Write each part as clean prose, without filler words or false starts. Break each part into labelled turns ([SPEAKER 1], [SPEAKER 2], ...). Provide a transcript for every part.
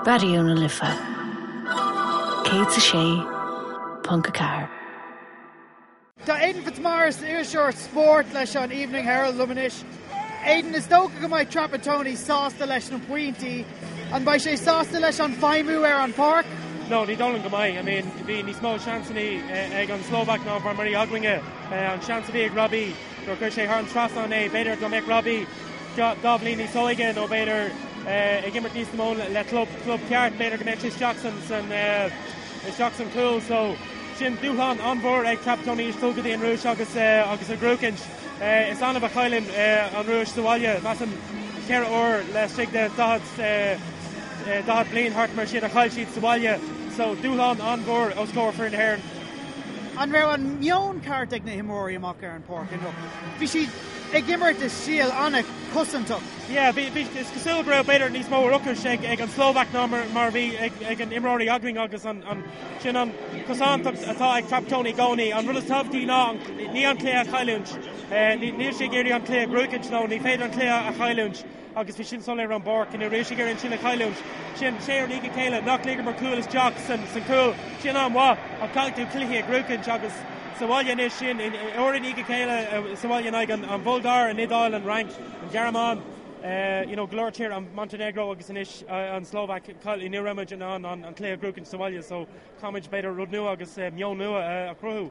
[SPEAKER 1] Raidió na Life 106.4.
[SPEAKER 2] Tá Aidan Fitzmaurice, iriseoir spóirt leis an Evening Herald liom anois. Aidan, is dócha go mbeidh Trapattoni sásta leis na pointí. An mbeidh sé sásta leis an feidhmiú ar an pháirc?
[SPEAKER 3] No, ní dóigh liom go mbeidh. I mean, bhí níos mó seansanna ag an Slóvaic ná mar a bhí againne. An seans a bhí ag Robbie nuair a chuir sé thar an trasnán é, b'fhéidir dá mbeadh Robbie dá bhliain níos óige nó b'fhéidir ag imirt níos mó le club, club ceart, b'fhéidir go mbeadh sé isteach san, san, isteach san cúl. So, sin dúshlán an-mhór ag Trapattoni anois dul go dtí an Rúis agus, agus a ghnóthachaint. Is annamh a chailleann an Rúis sa bhaile, measaim 4 uair laistigh de 40, 40 bliain thart mar sin a chaill siad sa bhaile. So, dúshlán an-mhór os comhair foireann na hÉireann.
[SPEAKER 2] An raibh an meon ceart ag na himreoirí amach ar an pháirc inniu? Bhí siad ag imirt i stíl an-chosantach.
[SPEAKER 3] Yeah, bhí, bhí, is cosúil go raibh b'fhéidir níos mó ocrais ag, ag an Slóvaic ná mar, mar a bhí ag, ag an imreoirí againn agus an, an, sin an chosantacht atá ag Trapattoni i gcónaí. An rud is tábhachtaí ná an, ní an cluiche a chailliúint. Ní, níl sé ag iarraidh an cluiche a ghnóthachaint nó ní féidir an cluiche a chailliúint agus bhí sin soiléir ar an bpáirc. Ní raibh sé ag iarraidh an sin a chailliúint. Sin sé uair i ndiaidh a chéile nach ligeamar cúl isteach san, san cúl. Sin an-mhaith ach caithfidh tú cluichí a ghnóthachaint agus sa bhaile anois sin uair i ndiaidh a chéile sa bhaile in aghaidh an, an Bhulgáir, an Iodáil, an Fhrainc, an Ghearmáin, you know, go leor tír, an Montenegro agus anois an Slóvaic, ní raibh muid in ann an cluiche a ghnóthachaint sa bhaile so caithfimid b'fhéidir rud nua agus meon nua a chruthú.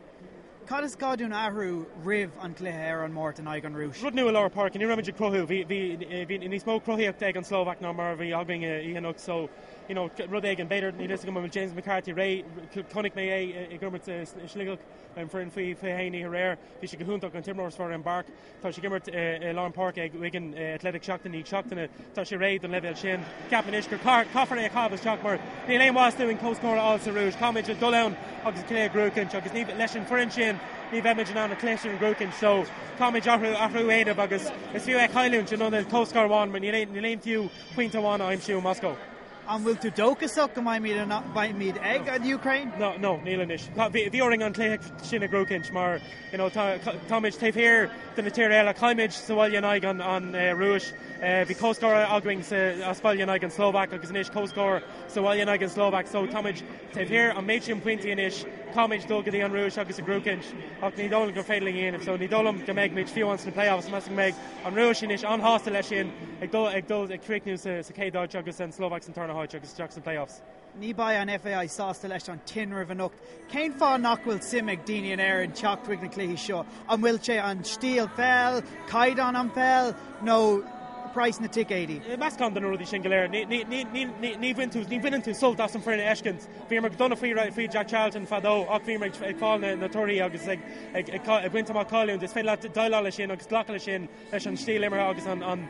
[SPEAKER 2] Cad is gá dúinn a athrú roimh an gcluiche ar an Máirt in aghaidh an Rúis?
[SPEAKER 3] Rud nua i lár páirce, ní raibh muid ag cruthú, bhí, bhí, bhí níos mó cruthaíochta ag an Slóvaic ná mar a bhí againn oíche anocht so, you know, rud éigin, b'fhéidir, níl fhios agam an bhfuil James McCarthy réidh, chonaic mé é ag imirt i Sligeach, an foireann faoi 21 oíche aréir, bhí sé go hiontach, an t-imreoir is fearr ar an bpáirc. Tá sé ag imirt i lár an páirce ag Wigan Athletic seachtain i ndiaidh seachtaine. Tá sé réidh don leibhéal sin. Ceapaim anois gur caithfear é a chaitheamh isteach mar níl aon mhaitheas dúinn comhscór a fháil sa Rúis. Caithfimid dul ann agus an cluiche a ghnóthachaint agus ní, leis an foireann sin ní bheimid in ann an cluiche sin a ghnóthachaint. So caithfimid athrú, athrú a dhéanamh agus is fiú é a chailliúint in ionad comhscór amháin mar níl aon, níl aon fiú pointe amháin a aimsiú i Moscó.
[SPEAKER 2] An bhfuil tú dóchasach go mbeimid ag an Ukraine?
[SPEAKER 3] No, no, níl anois. Bhí orainn an cluiche sin a ghnóthachaint mar you know, tá, táimid taobh thiar de na tíortha eile, chaill muid sa bhaile in aghaidh an, an Rúis, bhí comhscór againn sa, as baile in aghaidh an Slóvaic agus anois comhscór sa bhaile in aghaidh an Slóvaic, so táimid taobh thiar an méid sin pointí anois, caithfimid dul go dtí an Rúis agus a ghnóthachaint ach ní dóigh liom gur féidir linn a dhéanamh, so ní dóigh liom go mbeidh muid fiú ann sna playoffs, measaim go mbeidh an Rúis anois an-shásta leis sin ag dul ag dul ag críochnú sa, sa chéad áit agus an Slóvaic san tarna háit agus isteach sna playoffs.
[SPEAKER 2] Ní beidh an FAI sásta leis an tinreamh anocht. Cén fáth nach bhfuil suim ag daoine in Éirinn teacht chuig na cluichí seo? An bhfuil sé an stíl pheil, caighdeán an pheil nó praghas na ticéidí?
[SPEAKER 3] Meascán de na rudaí sin go léir. Ní bhain tú, ní bhaineann tú sult as an foireann a fheiscint. Bhíomar go dona faoi faoi Jack Charlton fadó ach bhíomar ag fáil na torthaí agus ag ag baint amach cáiliúint. Is féidir leat déileáil leis sin agus glacadh leis sin leis an stíl imeartha agus an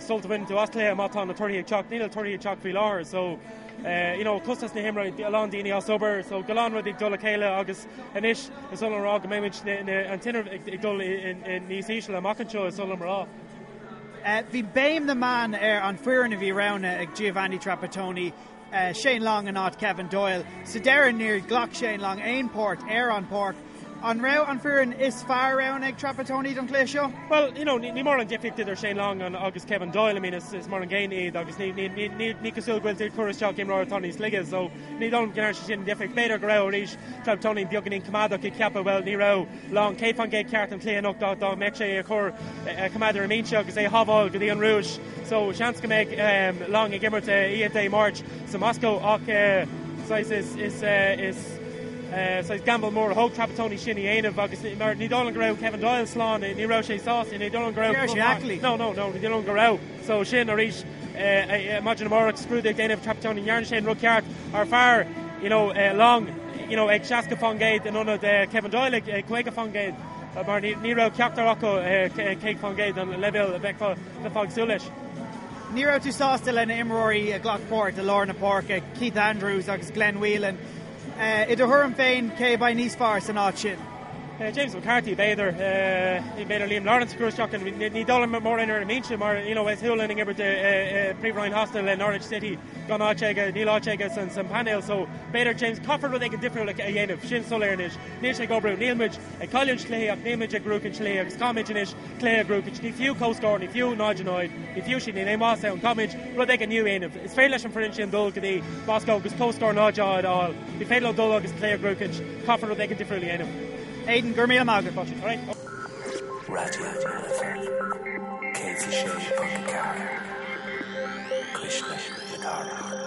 [SPEAKER 3] sult a bhaineann tú as cluiche má tá na torthaí ag teacht. Níl na torthaí ag teacht faoi láthair so you know costas na himeartha, a lán daoine as obair so go lán rudaí ag dul le chéile agus anois is oth liom a rá go mbeimid an tinreamh ag dul níos ísle amach anseo is oth liom a rá.
[SPEAKER 2] Bhí béim na meán ar an foireann a bhí roghnaithe ag Giovanni Trapattoni, Shane Long in áit Kevin Doyle. Sa deireadh níor ghlac Shane Long aon páirt ar an pháirc. An raibh an foireann is fearr roghnaithe ag Trapattoni don chluiche seo?
[SPEAKER 3] Well, you know, ní mór an difríocht idir Shane Long agus Kevin Doyle, I mean, is, is mar an gcéanna iad agus ní, ní, ní, ní, ní cosúil go bhfuil tú ag cur isteach imreoir atá níos laige, so ní dóigh liom go ndearna sé sin an difríocht. B'fhéidir go raibh arís Trapattoni beagáinín coimeádach ag ceapadh, well, ní raibh Long 100% ceart an cluiche anocht dá, dá mbeadh sé a chur a choimeád ar an mbinse agus é a shábháil go dtí an Rúis. So seans go mbeidh um, Long ag imirt oíche Dé Máirt sa Moscow ach uh, saghas is, is, uh, is saghas gamble mór a thóg Trapattoni sin a dhéanamh agus mar ní dóigh liom go raibh Kevin Doyle slán, ní raibh sé sásta, ní dóigh liom go raibh.
[SPEAKER 2] Ní raibh sé aclaí.
[SPEAKER 3] No, no, no, ní dóigh liom go raibh. So sin arís maidin amárach scrúdú ag déanamh Trapattoni, ndearna sé an rud ceart ar fearr, you know, Long, you know, ag 60% in ionad Kevin Doyle ag 50% mar ní raibh ceachtar acu 100% an leibhéal a bheifeá ag súil leis.
[SPEAKER 2] Ní raibh tú sásta le na imreoirí a ghlac páirt i lár na páirce, Keith Andrews agus Glenn Whelan. I do thuairim féin, cé a bheidh níos fearr san áit sin?
[SPEAKER 3] James McCarthy b'fhéidir, b'fhéidir Liam Lawrence a chur isteach, ní dóigh liom mórán ar an mbinse mar you know is Hoolahan ag imirt i Príomhroinn Shasana le Norwich City gan áit aige, níl áit aige san painéal so b'fhéidir James, caithfear rud éigin difriúil a dhéanamh, sin soiléir anois, níl sé ag oibriú, níl muid ag cailliúint cluichí ach níl muid ag buachaint cluichí agus caithfimid anois cluiche a bhuachaint, ní fiú comhscór, ní fiú 0-0, ní fiú sin, níl aon mhaitheas ann, caithfimid rud éigin nua a dhéanamh, is féidir leis an foireann sin dul go dtí Moscó agus comhscór 0-0 a fháil, ní féidir leo dul agus cluiche a bhuachaint, caithfear rud éigin difriúil a dhéanamh.
[SPEAKER 2] Aidan, go raibh míle maith agat.
[SPEAKER 4] Raidió na Life 106.4, Cuisle na Cathrach.